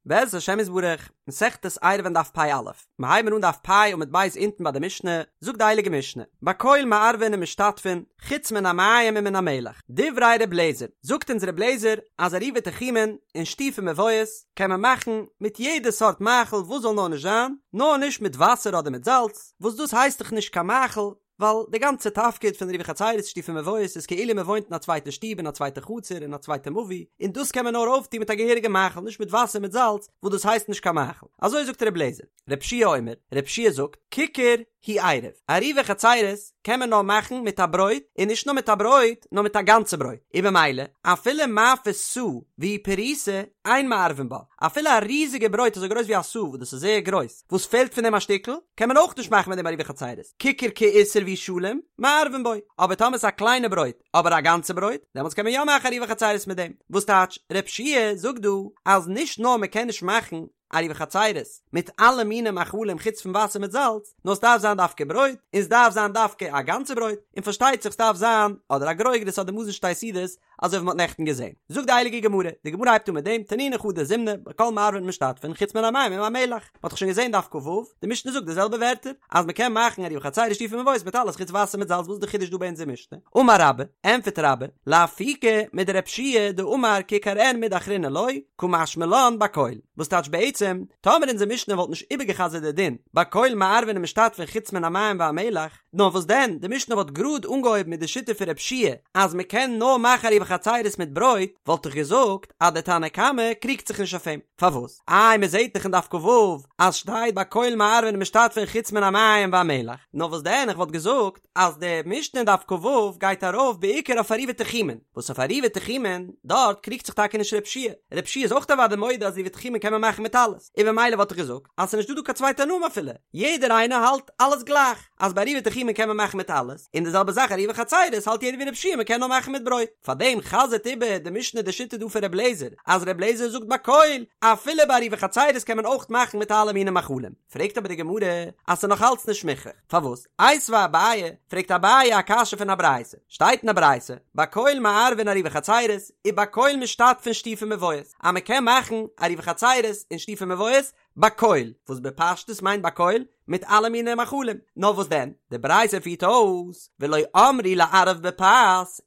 בעזרת השם יתברך, מסכת עירובין דף פ"א, מיר הייבן אן דף פ' עמוד ב' אונטן ביי די משנה, זאגט די הייליגע משנה, בכל מערבין ומשתתפין, חוץ מן המים ומן המלח, דברי ר' לעזער, זאגט אונז ר' לעזער אז עירובי תחומין און שיתופי מבואות קען מען מאכן מיט יעדע סארט מאכל וואס זאל נאר נישט זיין, נאר נישט מיט וואסער אדער מיט זאלץ, וואס דאס הייסט דאך נישט קיין מאכל, ווייל די גאנצע תפקיד פון עירובי חצירות שיתופי מבואות איז כאילו מען וואוינט אין א צווייטע שטוב אין א צווייטע חצר אין א צווייטע מבוי און דאס קען מען נאר אויפטון מיט א געהעריגע מאכל נישט מיט וואסער מיט זאלץ וואס דאס הייסט נישט קיין מאכל אזוי זאגט ר' לעזער ר' יהושע אומר ר' יהושע זאגט כיכר הוא עירוב עירובי חצירות קען מען נאר מאכן מיט א ברויט און נישט נאר מיט א ברויט נאר מיט א גאנצע ברויט און במילא אפילו מאפה סאה והיא פרוסה אין מערבין בה אפילו א ריזיגע ברויט אזוי גרויס ווי א סאה וואס דאס איז זייער גרויס וואס פעלט פון דעם א שטיקל, קען מען אויך נישט מאכן מיט דעם עירובי חצירות, כיכר כאיסר והוא שלם, מערבין בו, אבער טאמער ס'איז א קליינע ברויט, אבער א גאנצע ברויט, דעמאלטס קען מען יא מאכן עירובי חצירות מיט דעם. וואס טייטש, ר' יהושע זאגט דא, אז נישט נאר מען קען נישט מאכן עירובי חצירות מיט אלע מיני מאכלים חוץ פון וואסער מיט זאלץ, נאר ס'דארף זיין דווקא ברויט, און ס'דארף זיין דווקא א גאנצע ברויט, און פארשטייט זיך ס'דארף זיין אדער א גרוגרת אדער מזון שתי סעודות, אזוי ווי מ'האט נעכטן געזען. זאגט די הייליגע גמרא, די גמרא הייבט אן מיט דעם, תנינא חדא זימנא, בכל מערבין ומשתתפין, חוץ מן המים ומן המלח. מ'האט דאך שוין געזען דף כ"ו, די משנה זאגט די זעלבע ווערטער, אז מ'קען מאכן עירובי חצירות שיתופי מבואות מיט אלעס חוץ וואסער מיט זאלץ, וואס איז די חידוש דא ביי אונזער משנה? אמר רבה, ענטפערט רבה, לאפוקי מדר' יהושע דאמר כיכר אין מידי אחרינא לא, קא משמע לן בכל. וואס טייטש בעצם, טאמער אונזער משנה וואלט נישט איבערגע'חזר'ט די דין, בכל מערבין ומשתתפין חוץ מן המים והמלח, נאר וואס דען, די משנה וואלט גראד אנגעהויבן מיט די שיטה פון ר' יהושע אז מען קען נאר מאכן עירובי חצירות מיט ברויט, וואלט איך געזאגט אז דער תנא קמא קריגט זיך נישט אויף אים. פארוואס? איי מען זעט דאך אין דף כ"ו אז שטייט בכל מערבין ומשתתפין חוץ מן המים והמלח, נאר וואס דען איך וואלט געזאגט אז די משנה אין דף כ"ו גייט ארויף בעיקר אויף עירובי תחומין, וואס אויף עירובי תחומין דארט קריגט זיך טאקע נישט ר' יהושע, ר' יהושע איז אויך אוודאי מודה אז עירובי תחומין קען מען מאכן מיט אלעס, און במילא וואלט איך געזאגט אז ס'איז נישטא דא קיין צוויי תנאים אפילו, יעדער איינער האלט אלעס גלייך, אז ביי עירובי תחומין קען מען מאכן מיט אלעס, און די זעלבע זאך עירובי חצירות האלט יעדער ווי ר' יהושע מ'קען נאר מאכן מיט ברויט. פארדעם חזר'ט איבער די משנה די שיטה דא פון ר' לעזער, אז ר' לעזער זאגט בכל, אפילו ביי עירובי חצירות קען מען אויך מאכן מיט אלע מיני מאכלים. פרעגט אבער די גמרא אז ס'איז נאך אלץ נישט מוכרח. פארוואס? איתיביה אביי, פרעגט אביי א קשיא פון א ברייתא. שטייט אין א ברייתא, בכל מערבין עירובי חצירות, ובכל משתתפין שיתופי מבואות, אז מ'קען מאכן עירובי חצירות און שיתופי מבואות, בכל, וואס בפשטות מיינט בכל, מיט אלע מיני מאכלים, נאר וואס דען, די ברייתא פירט אויס, ולא אמרו לערב בפת,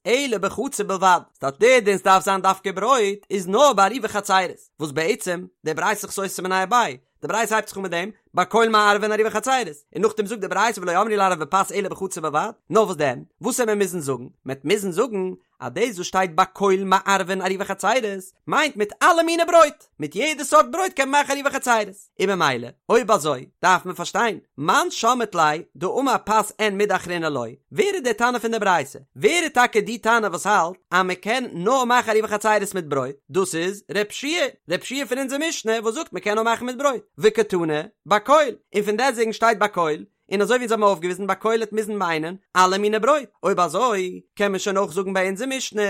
אלא בחצר בלבד, ס'טייטש דער דין ס'דארף זיין דווקא ברויט, איז נאר ביי עירובי חצירות, וואס בעצם, די ברייתא איז סותר מיניה וביה, די ברייתא הייבט זיך אן מיט דעם, בכל מערבין עירובי חצירות, און נאכדעם זאגט די ברייתא ולא אמרו לערב בפת אלא בחצר בלבד, נאר וואס דען, וואס וועט מען מוזן זאגן, מ'עט מוזן זאגן, אז דאס וואס שטייט בכל מערבין עירובי חצירות מיינט מיט אלע מיני ברויט, מיט יעדע סארט ברויט קען מען מאכן עירובי חצירות, און במילא אויב אזוי דארף מען פארשטיין, מאן שמעת ליה דאמר פת אין מידי אחרינא לא, ווער איז דער תנא פון די ברייתא? ווער איז טאקע די תנא וואס האלט אז מען קען נאר מאכן עירובי חצירות מיט ברויט? דאס איז ר' יהושע, ר' יהושע פון אונזער משנה וואס זאגט מען קען נאר מאכן מיט ברויט, וקתני בכל, און פון דעסטוועגן שטייט בכל, און אזוי ווי אונז האבן אויפגעוויזן בכל העט מוזן מיינען אלע מיני ברויט, אויב אזוי קען מען שוין אויך זאגן ביי אונזער משנה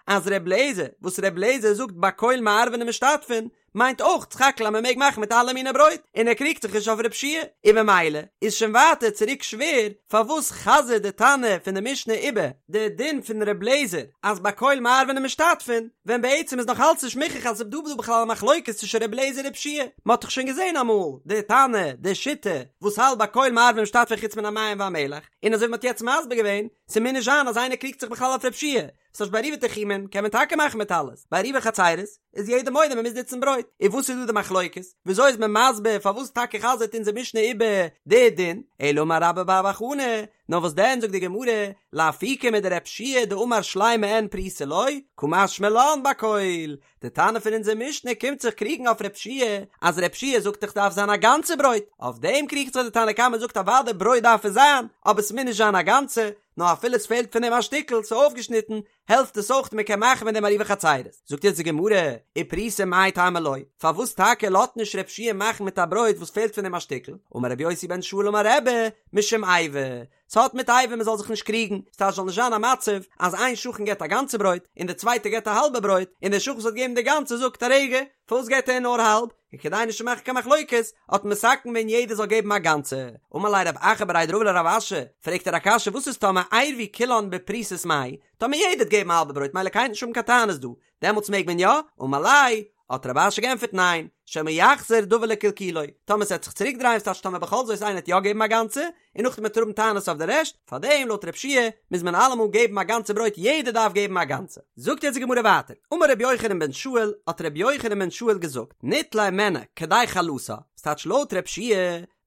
אז ר' לעזער וואס ר' לעזער זאגט בכל מערבין ומשתתפין מיינט אויך סך הכל אז מען מעג מאכן מיט אלע מיני ברויט און ער קריגט זיך נישט אויף ר' יהושע, און במילא איז שוין ווייטער צוריק שווער פארוואס חזר'ט די תנא פון די משנה איבער די דין פון ר' לעזער אז בכל מערבין ומשתתפין ווען בעצם איז נאך אלץ נישט מוכרח אז ס'איז דא דא בכלל א מחלוקת צווישן ר' לעזער און ר' יהושע, מ'האט דאך שוין געזען אמאל די תנא, די שיטה, וואס האלט בכל מערבין ומשתתפין חוץ מן המים והמלח, און אזוי ווי מ'האט יעצט מסביר געווען, ס'מוז נישט זיין אז איינער קריגט זיך בכלל אויף ר' יהושע, ס'טייטש ביי עירובי תחומין קען מען טאקע מאכן מיט אלעס, ביי עירובי חצירות איז יעדער מודה מ'מוז נוצן ברויט, און וואס איז דא די מחלוקת? וויאזוי איז מען מסביר פארוואס טאקע חזר'ט אונזער משנה איבער די דין? אלא אמר רבה בר בר חנה, נאר וואס דען זאגט די גמרא, לאפוקי מדר' יהושע דאמר שלימה אין פרוסה לא, קא משמע לן בכל, די תנא פון אונזער משנה קומט זיך קריגן אויף ר' יהושע, אז ר' יהושע זאגט דאך דארף זיין א גאנצע ברויט, אויף דעם קריגט זיך די תנא קמא זאגט אוודאי ברויט דארף עס זיין, אבער ס'מוז נישט זיין א גאנצע, נאר אפילו עס פעלט פון דעם א שטיקל, ס'איז אויפגעשניטן, העלפט עס אויך מען קען מאכן מיט דעם עירובי חצירות. זאגט יעצט די גמרא, ופרוסה מאי טעמא לא, פארוואס טאקע לאזט נישט ר' יהושע מאכן מיט א ברויט וואס פעלט פון דעם א שטיקל? אמר רבי יוסי בן שאול אמר רבי, משום איבה, ס'האט מיט איבה מ'זאל זיך נישט קריגן, ס'טייטש זאל נישט זיין א מצב אז איין שכן געבט א גאנצע ברויט און דער צווייטער געבט א האלבע ברויט, און דער שכן וואס האט געגעבן די גאנצע זאגט א רגע, פארוואס געבט ער נאר האלב? און כדי נישט צו מאכן קיין מחלוקת האט מען מתקן געווען יעדער זאל געבן א גאנצע. אמר ליה רב אחא בריה דרבא לרב אשי, פרעגט ער א קשיא וואס איז טאמער עירבו כולן בפרוסות מאי, טאמער יעדער האט געבן א האלבע ברויט מילא קיינער האט נישט האבן קיין טענות דא, דעמאלטס מעג מען יא? אמר ליה. האט רב אשי געענטפערט ניין, שמא יחזור דבר לקלקולו, טאמער ס'עט זיך צוריק דרייען ס'טייטש טאמער בכל זאת איינער עט יא געבן א גאנצע, און נאכדעם וועט ער האבן טענות אויף די רעשט, פארדעם לויט רב שיע מוז מען אלעמאל געבן א גאנצע ברויט יעדער דארף געבן א גאנצע. זאגט יעצט די גמרא ווייטער, אמר רבי יוחנן בן שאול, האט רבי יוחנן בן שאול געזאגט, ניטלה הימנה כדי חלתה, ס'טייטש לויט רב שיע,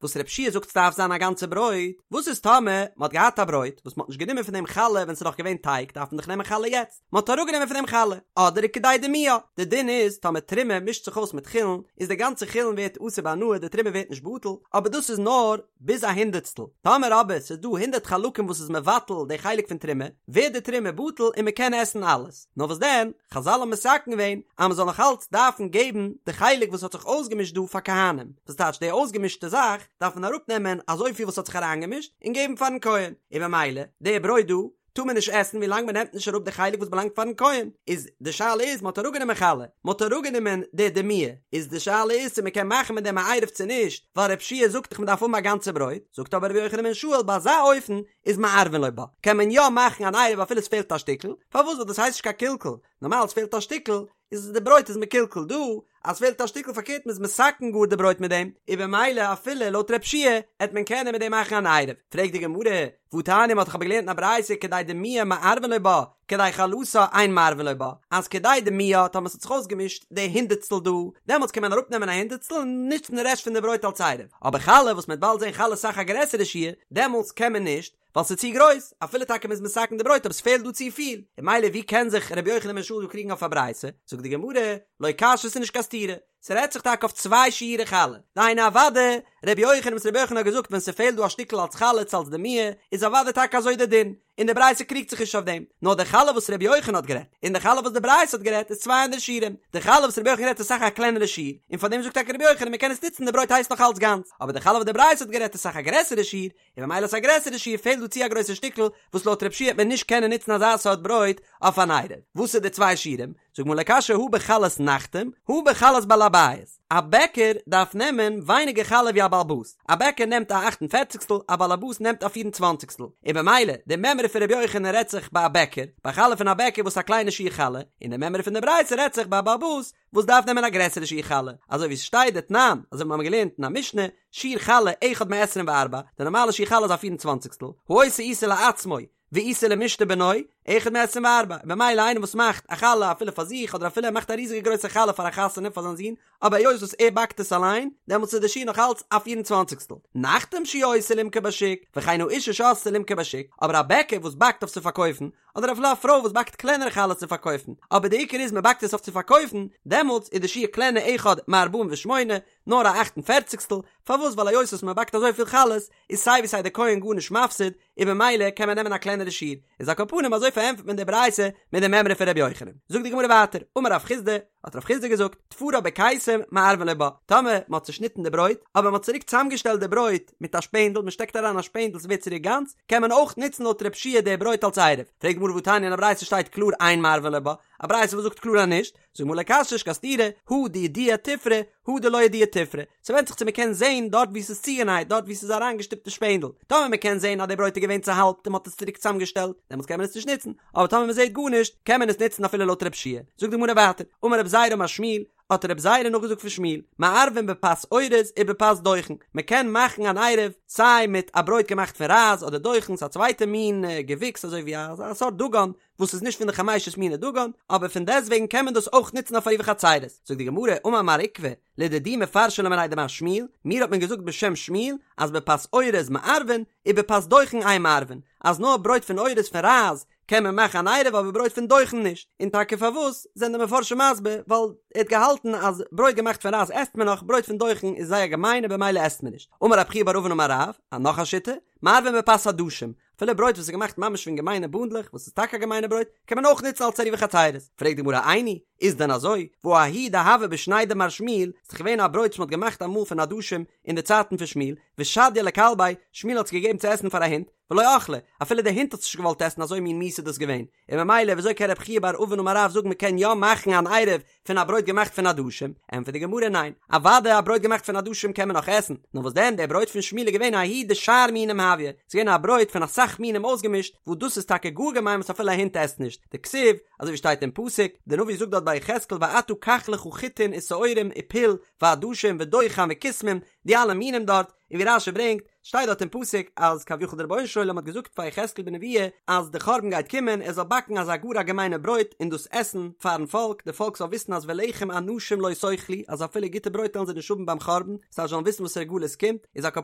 וואס רב שיע זאגט ס'דארף זיין א גאנצע ברויט, וואס איז טאמער מ'האט געהאט א ברויט וואס מ'האט נישט גענומען פון דעם חלה ווען ס'איז נאך געווען טייג דארף מען דאך נעמען חלה יעצט, מ'האט אראפגענומען פון דעם חלה, אדער כדי דימועה, די דין איז טאמער תרומה מישט זיך אויס מיט חולין איז די גאנצע חולין ווערט אסור בהנאה די תרומה ווערט נישט בטל, אבער דאס איז נאר ביז א הונדערטסטל, טאמער אבער ס'איז דא הונדערט חלקים וואס איז מבטל די חלק פון תרומה, ווערט די תרומה בטל און מ'קען עסן אלעס. נאר וואס דען, חזל האבן מתקן געווען אז מ'זאל נאך אלץ דארפן געבן די חלק וואס האט זיך אויסגעמישט דא פאר כהנים, וואס טייטש די אויסגעמישטע זאך דארף מען אראפנעמען אזויפיל וואס האט זיך אריינגעמישט און געבן פארן כהן, און במילא די ברויט דא טאר מען נישט עסן ווילאנג מ'נעמט נישט אראפ די חלק וואס באלאנגט פארן כהן, איז די שאלה איז מ'האט אראפגענומען חלה, מ'האט אראפגענומען די דימוע, איז די שאלה איז צו מ'קען מאכן מיט דעם א עירוב צו נישט, ווייל רב שיע זאגט דאך מ'דארף האבן א גאנצע ברויט, זאגט אבער רבי יוחנן בן שאול ביי אזא אופן איז מערבין לו בה, קען מען יא מאכן אן עירוב אפילו עס פעלט א שטיקל, פארוואס ווייל דאס הייסט נישט קיין קלקול, נארמאל עס פעלט א שטיקל איז די ברויט איז מקולקל, דא אז פעלט א שטיקל פארקערט מען איז מתקן גאר די ברויט מיט דעם, איז במילא אפילו לויט רב שיע עט מען קענען מיט דעם מאכן אן עירוב, פרעגט די גמרא, והתניא מ'האט דאך אבער געלערנט אין א ברייתא כדי דימועה מערבין לו בה, כדי חלתה אין מערבין לו בה, אז כדי דימועה טאמער ס'האט זיך אויסגעמישט די הונדערטסטל דא, דעמאלטס קען מען אראפנעמען א הונדערטסטל און נוצן די רעשט פון די ברויט אלס עירוב, אבער חלה וואס מ'וועט באלד זען חלה איז אסאך א גרעסערע שיעור, דעמאלטס קען מען נישט, ווייל ס'איז צו גרויס, אפילו טאקע מ'איז מתקן די ברויט אבער ס'פעלט דא צופיל, און ממילא ווי קען זיך ר' יוחנן בן שאול דא קריגן אויף א ברייתא, זאגט די גמרא, לא קשיא ס'איז נישט קיין סתירה, ס'רעדט זיך טאקע אויף צוויי שיעורי חלה, דהיינו אוודאי ר' יוחנן וואס ר' יוחנן האט געזאגט ווען ס'פעלט דא א שטיקל אלס חלה צו אלס דימוע, איז אוודאי טאקע אזוי די דין, און די ברייתא קריגט זיך נישט אויף דעם, נאר די חלה וואס ר' יוחנן האט גערעדט, און די חלה וואס די ברייתא האט גערעדט איז צוויי אנדערע שיעורים, די חלה וואס ר' יוחנן האט גערעדט איז אסאך א קלענערע שיעור, און פאר דעם זאגט טאקע ר' יוחנן מ'קען עס נוצן די ברויט הייסט נאך אלץ גאנץ, אבער די חלה וואס די ברייתא האט גערעדט איז אסאך א גרעסערע שיעור, און ממילא איז א גרעסערע שיעור פעלט דא צו א גרויסע שטיקל וואס לויט רב שיע וועט מען נישט קענען נוצן אזא סארט ברויט אויף אן עירוב. וואס איז די צוויי שיעורים? זאגט די גמרא לא קשיא הא בחלת נחתום הא בחלת בעל הבית. א בעקער דארף נעמען ווייניגער חלה ווי א בעל הבית. א בעקער נעמט א אכט און פערציגסטל, א בעל הבית נעמט א פיר און צוואנציגסטל. און במילא, די מימרא פון רבי יוחנן רעדט זיך ביי א בעקער, ביי חלה פון א בעקער וואס איז א קליינע שיעור חלה, און די מימרא פון די ברייתא רעדט זיך ביי א בעל הבית וואס דארף נעמען א גרעסערע שיעור חלה, אזוי ווי עס שטייט דתנן, אזוי ווי מיר האבן געלערנט אין א משנה, שיעור חלה אחד מעשרים וארבע, די נארמאלע שיעור חלה איז א פיר און צוואנציגסטל, העושה עיסה לעצמו, ועיסה למשתה בנו, אחד מעשרים וארבע, און במילא איינער וואס מאכט א חלה אפילו פאר זיך אדער אפילו ער מאכט א ריזיגע גרויסע חלה פאר א חתונה פאר זיין זון, אבער היות וואס ער באקט עס אליין, דעמאלטס איז די שיעור נאך אלץ א פיר און צוואנציגסטל. נחתום שהוא עושה למכור בשוק, וכן האשה שעשתה למכור בשוק, אבער א בעקער וואס באקט אויף צו פארקויפן, אדער אפילו א פרוי וואס באקט קלענערע חלות צו פארקויפן, אבער די עיקר איז מען באקט עס אויף צו פארקויפן, דעמאלטס איז די שיעור קלענער אחד מארבעים ושמונה, נאר א אכט און פערציגסטל, פארוואס ווייל היות וואס מען באקט אזויפיל חלות, איז סיי ווי סיי די כהן גארנישט מפסיד, און במילא קען מען נעמען א קלענערע שיעור, איז על כל פנים אזוי פארענטפערט מען די ברייתא מיט די מימרא פון ר' יוחנן. זאגט די גמרא ווייטער, אמר רב חסדא, האט רב חסדא געזאגט, תפרה בקיסם מערבין לו בה, טאמער מען האט צושניטן די ברויט, אבער מען האט צוריק צוזאמגעשטעלט די ברויט מיט א שפענדל, מען שטעקט אריין א שפענדל ס'ווערט צוריק גאנץ, קען מען אויך נוצן לויט רב שיע די ברויט אלס עירוב. פרעגט די גמרא והתניא אין א ברייתא שטייט קלאר אין מערבין לו בה, א ברייתא וואס זאגט קלאר אז נישט, זאגט די גמרא לא קשיא נישט קיין סתירה, הא דידיע תפרה, הא דלא ידיע תפרה, ס'ווענדט זיך צו מ'קען זעהן דארט וואו ס'איז צוגענייט, דארט וואו ס'איז אריינגעשטופט די שפענדל, טאמער מ'קען זעהן אז די ברויט איז געווען צוהאלבט און מ'האט עס צוריק צוזאמגעשטעלט, דעמאלטס קען מען עס נישט נוצן, אבער טאמער מ'זעהט גארנישט, קען מען עס נוצן אפילו לויט רב שיע. זאגט די גמרא ווייטער, אמר רב זירא אמר שמואל, האט רב זירא נאכגעזאגט פון שמואל, מערבין בפת אורז ובפת דוחן, מ'קען מאכן אן עירוב סיי מיט א ברויט געמאכט פון רייז אדער דוחן, ס'איז א צווייטע מין געוויקס אזוי ווי א סארט דגן, וואס איז נישט פון די חמשת מיני דגן, אבער פון דעסטוועגן קען מען דאס אויך נוצן אויף עירובי חצירות. זאגט די גמרא, אמר מר עוקבא, לדידי מפרשא לי מיניה דמר שמואל, מיר האט מען געזאגט בשם שמואל, אז בפת אורז מערבין, ובפת דוחן אין מערבין, אז נאר ברויט פון אורז פון רייז קען מען מאכן אן עירוב אבער ברויט פון דוחן נישט, און טאקע פארוואס זענען די מפרשים מסביר, ווייל ער האט געהאלטן אז ברויט געמאכט פון רייז עסט מען נאך, ברויט פון דוחן איז זייער געמיין און במילא עסט מען נישט. אמר רב חייא בר אבין אמר רב, א נאך א שיטה, מערבין בפת עדשים, אפילו ברויט וואס איז געמאכט ממש פון געמיינע בונדלעך, וואס איז טאקע א געמיינע ברויט, קען מען אויך נוצן אלס עירובי חצירות. פרעגט די גמרא איני, איז דען אזוי? והא ההוא דהוה בשני דמר שמואל, ס'איז דאך געווען א ברויט וואס מ'האט געמאכט אמאל פון עדשים אין די צייטן פון שמואל, ושדייה לכלביה, שמואל האט עס געגעבן צו עסן פאר א הונט. ולא אכלה, אפילו די הונט האט עס נישט געוואלט עסן אזוי מין מיאוס איז דאס געווען, און ממילא וויאזוי קען רב חייא בר אבין אמר רב זאגן מ'קען יא מאכן אן עירוב פון א ברויט געמאכט פון עדשים? ענטפערט די גמרא ניין, אוודאי א ברויט געמאכט פון עדשים קען מען נאך עסן, נאר וואס דען דער ברויט פון שמואל איז געווען ההוא דשאר מינים הויא, ס'איז געווען א ברויט פון אסאך מינים אויסגעמישט, וואס דאס איז טאקע גאר געמיין וואס אפילו א הונט עסט נישט, דכתיב, אזוי ווי שטייט אין פסוק, דער נביא זאגט דארט ביי יחזקאל ואתה קח לך חיטין ושעורים ופול ועדשים ודוחן וכסמים, די אלע מינים דארט, און ווי רש"י ברענגט, שטייט דארט אין פסוק אז כביכול דער רבונו של עולם האט געזאגט פאר יחזקאל בנבואה אז די חורבן גייט קומען ער זאל באקן אזא גאר א געמיינע ברויט און דאס עסן פארן פאלק, די פאלק זאל וויסן אז ולחם אנשים לא תאכלו אז אפילו גוטע ברויט וועלן זיי נישט האבן ביים חורבן, זיי זאלן וויסן וואסערע גלות קומט, איז על כל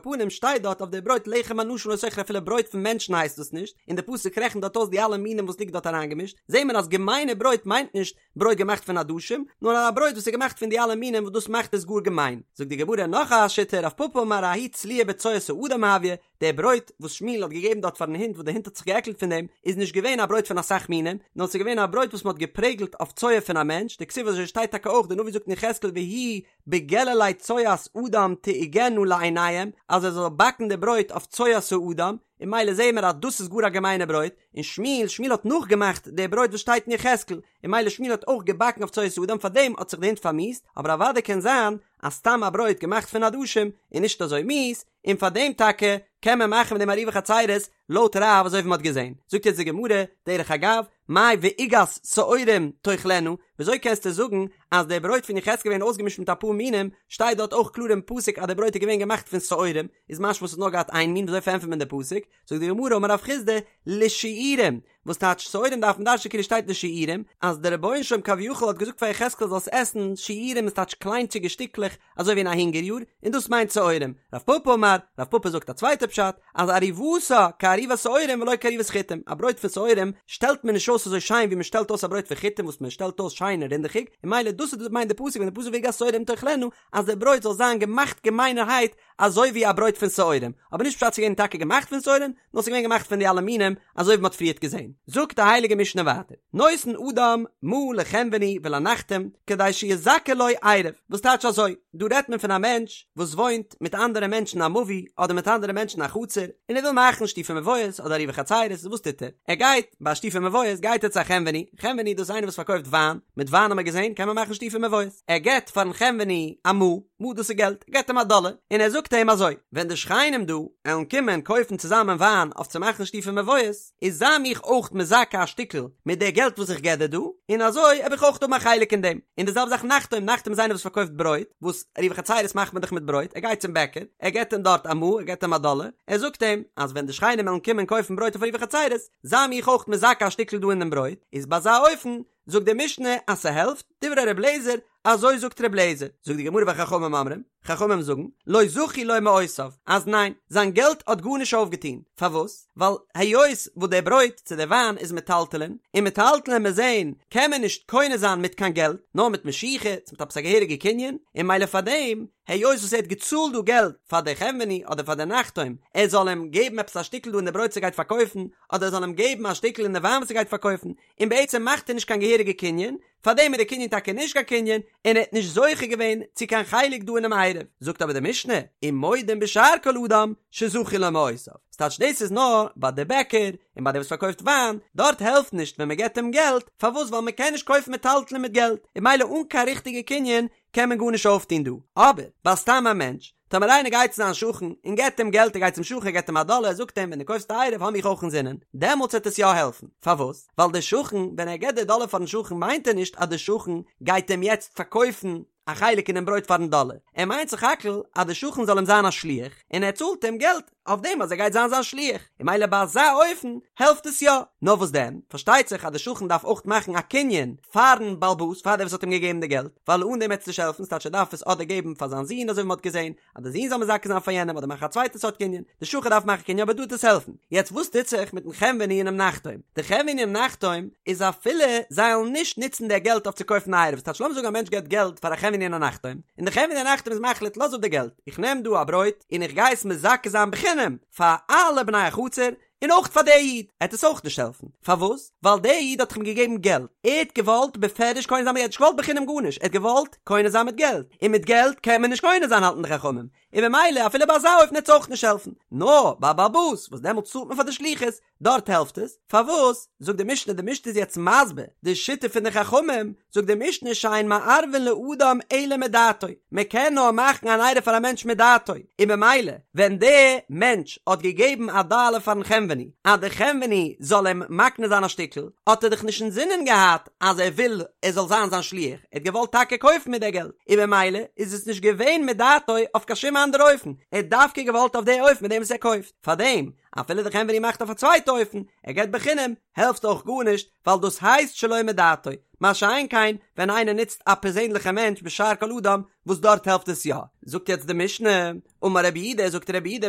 פנים שטייט דארט אויף די ברויט לחם אנשים לא תאכלו אפילו ברויט פון מענטשן הייסט דאס נישט, און די פסוק רעכנט דארט אויס די אלע מינים וואס ליגט דארט אריינגעמישט, זעהט מען אז געמיינע ברויט מיינט נישט ברויט געמאכט פון עדשים, נאר א ברויט וואס איז געמאכט פון די אלע מינים וואס דאס מאכט עס גאר געמיין. זאגט די גמרא נאך א שיטה, רב פפא אמר ההיא צלויה בצואת האדם הויא, די ברויט וואס שמואל האט געגעבן דארט פארן הונט וואס די הונט האט זיך געעקלט פון דעם, איז נישט געווען א ברויט פון אסאך מינים, נאר ס'איז געווען א ברויט וואס מ'האט געפרעגלט אויף צואה פון א מענטש, דכתיב אזוי שטייט טאקע אויך, די נביא זאגט אין יחזקאל והיא בגללי צואת אדם תעוגנה לעיניהם, אז ער זאל באקן די ברויט אויף צואת האדם, און ממילא זעהן מיר אז דאס איז גאר א געמיינע ברויט, און שמואל, שמואל האט נאכגעמאכט די ברויט וואס שטייט אין יחזקאל, און ממילא שמואל האט אויך געבאקן אויף צואת האדם פארדעם האט זיך די הונט פארמיאוסט, אבער אוודאי קען זיין אז סתם א ברויט געמאכט פון עדשים איז נישט אזוי מיאוס, און פארדעם טאקע קען מען מאכן מיט דעם עירובי חצירות לויט רב אזוי ווי מען האט געזען. זאגט יעצט די גמרא, דרך אגב, מאי ועוגת שעורים תאכלנה, וויאזוי קענסטו זאגן אז די ברויט פון יחזקאל געווען אויסגעמישט מיט אפאר מינים, שטייט דארט אויך קלאר אין פסוק אז די ברויט איז געווען געמאכט פון שעורים, איז משמע ס'האט נאר געהאט איין מין, וויאזוי פארענטפערט מען די פסוק? זאגט די גמרא אמר רב חסדא לשיעורים, וואס טייטש שעורים דארף מען דרש'נען כאילו שטייט לשיעורים, אז דער רבונו של עולם כביכול האט געזאגט פאר יחזקאל זאלסט עסן שיעורים איז טייטש קליינטשיגע שטיקלעך אזוי ווי אין א הונגער יאר, און דאס מיינט שעורים. רב פפא אמר, רב פפא זאגט א צווייטע פשט, אז עריבתה כעריבת שעורים ולא כעריבת חיטים, א ברויט פון שעורים שטעלט מען נישט אויס אזוי שיין ווי מען שטעלט אויס א ברויט פון חיטים וואס מען שטעלט אויס שיין און רינדעכיג, און ממילא דאס איז מיינט די פסוק ווען די פסוק ועוגת שעורים תאכלנה אז די ברויט זאל זיין געמאכט געמיינערהייט אזוי ווי א ברויט פון שעורים, אבער נישט פשט ס'איז געווען טאקע געמאכט פון שעורים, נאר ס'איז געווען געמאכט פון די אלע מינים, אזוי ווי מ'האט פריערט געזען. זאגט די הייליגע משנה ווייטער, נותן אדם מעה לחנווני ולנחתום, כדי שיזכה לו עירוב, וואס טייטש אזוי, דא רעדט מען פון א מענטש וואס וואוינט מיט אנדערע מענטשן א מבוי, אדער מיט אנדערע מענטשן א חצר, און ער וויל מאכן שיתופי מבואות אדער עירובי חצירות, וואס טוט ער? ער גייט, ביי שיתופי מבואות גייט ער צו א חנווני, חנווני דאס איז איינער וואס פארקויפט וויין, מיט וויין האט מען געזען קען מען מאכן שיתופי מבואות, ער געבט פארן חנווני א מעה, מעה דאס איז געלט, געבט אים א דאלער, און ער זאגט אים אזוי, ווען די שכנים דא עלן קומען קויפן צוזאמען וויין אויף צו מאכן שיתופי מבואות, איז זיי מיך אויך מזכה א שטיקל מיט די געלט וואס איך געב דיר דא, און אזוי העב איך אויך האבן א חלק אין דעם. און די זעלבע זאך נחתום, נחתום איז איינער וואס פארקויפט ברויט, וואס עירובי חצירות מאכט מען דאך מיט ברויט, ער גייט צום בעקער, ער געבט אים דארט א מעה, ער געבט אים א דאלער, ער זאגט אים, אז ווען די שכנים עלן קומען קויפן ברויט אויף עירובי חצירות, זיי מיך אויך מזכה א שטיקל דא אין דעם ברויט, איז ביי אזא אופן, זאגט די משנה אז ס'העלפט, דברי ר' לעזער, אזוי זאגט ר' לעזער, זאגט די גמרא וחכמים אומרים, חכמים זאגן, לא זכו לו מעותיו, אז ניין, זיין געלט האט גארנישט אויפגעטון, פארוואס? ווייל היות וואס דער ברויט צו דער וויין איז מטלטלין, און מטלטלין מיר זעהן קען מען נישט קונה זיין מיט קיין געלט, נאר מיט משיכה, צו מיט עפעס א געהעריגע קנין, און ממילא פארדעם, היות וואס ער האט געצאלט דא געלט פאר די חנווני אדער פאר די נחתום, ער זאל אים געבן עפעס א שטיקל דא אין די ברויט וואס ער גייט פארקויפן, אדער ער זאל אים געבן א שטיקל אין די וויין וואס ער גייט פארקויפן, און בעצם מאכט ער נישט קיין געהעריגע קנין, פארדעם איז די קנין טאקע נישט קיין קנין, און ער האט נישט זוכה געווען צו קיין חלק דא אינעם עירוב. זאגט אבער די משנה, ומודים בשאר כל אדם שזכו לו מעותיו. ס'טייטש דאס איז נאר ביי די בעקער, און ביי דער וואס פארקויפט וויין, דארט העלפט נישט ווען מ'געבט אים געלט, פארוואס ווייל מ'קען נישט קויפן מטלטלין מיט געלט, און ממילא אן קיין ריכטיגע קנין קען מען גארנישט אויפטון דא. אבער ביי סתם א מענטש, טאמער איינער גייט צו זיין שכן און געבט אים געלט, ער גייט צום שכן ער געבט אים א דאלער, ער זאגט אים ווען דו קויפסט א עירוב האב מיך אויך אינזינען, דעמאלטס וועט עס יא העלפן. פארוואס? ווייל דער שכן, ווען ער געבט די דאלער פארן שכן מיינט ער נישט אז דער שכן גייט אים יעצט פארקויפן א חלק אינעם ברויט פארן דאלער, ער מיינט סך הכל אז דער שכן זאל אים זיין א שליח, און ער צאלט אים געלט אויף דעם אז ער גייט זיין זיין שליח, און ממילא ביי אזא אופן העלפט עס יא. נאר וואס דען, פארשטייט זיך אז דער שכן דארף אויך מאכן א קנין פארן בעל הבית, פאר דער וואס האט אים געגעבן די געלט, ווייל אן דעם וועט עס נישט העלפן, ס'טייטש ער דארף עס אדער געבן פאר זיין זון אזוי ווי מ'האט געזען, אז דער זון זאל מזכה זיין פאר יענעם אדער מאכן א צווייטע סארט קנין, די שכן דארף מאכן קנין אבער דא וועט עס העלפן. יעצט וואס טוט זיך מיטן חנווני און דעם נחתום? די חנווני און נחתום איז אפילו זיי וועלן נישט נוצן די געלט אויף צו קויפן א עירוב, ס'טייטש לאמיר זאגן א מענטש געבט געלט פאר א חנווני און א נחתום, און די חנווני און נחתום איז מחליט לאז אפ די געלט, איך נעם דא א ברויט און איך גיי עס מזכה זיין בחינם פאר אלע בני החצר, און אויך פאר די איד עט עס אויך נישט העלפן, פארוואס? ווייל די איד האט דאך אים געגעבן געלט, ער האט געוואלט בפירוש קונה זיין מיט געלט, נישט געוואלט בחינם גארנישט, ער האט געוואלט קונה זיין מיט געלט, און מיט געלט קען מען נישט קונה זיין האלטן די חכמים, און ממילא אפילו ביי אזא אופן עט עס אויך נישט העלפן, נאר ביי א בעל הבית וואס דעמאלטס צאלט מען פאר די שליחות, דארט העלפט עס, פארוואס? זאגט די משנה, די משנה איז יעצט מסביר די שיטה פון די חכמים, זאגט די משנה שאין מערבין לאדם אלא מדעתו, מען קען נאר מאכן אן עירוב פאר א מענטש מדעתו, און ממילא ווען דער מענטש האט געגעבן א דאלער פארן חנווני אז דער חנווני זאל אים מקנה זיין א שטיקל, האט ער דאך נישט אינזינען געהאט אז ער וויל ער זאל זיין זיין שליח, ער האט געוואלט טאקע קויפן מיט די געלט, און ממילא איז עס נישט געווען מדעתו אויף קיין שום אנדערע אופן, ער האט דווקא געוואלט אויף די אופן מיט דעם וואס ער קויפט, פארדעם אפילו די חנווני מאכט אויף א צווייטע אופן, ער געבט בחינם, העלפט אויך גארנישט, ווייל דאס הייסט שלא מדעתו, מה שאין כן ווען איינער נוצט א פערזענליכע מענטש בשאר כל אדם וואס דארט העלפט עס יא. זאגט יעצט די משנה, אמר רבי יהודה, זאגט רבי יהודה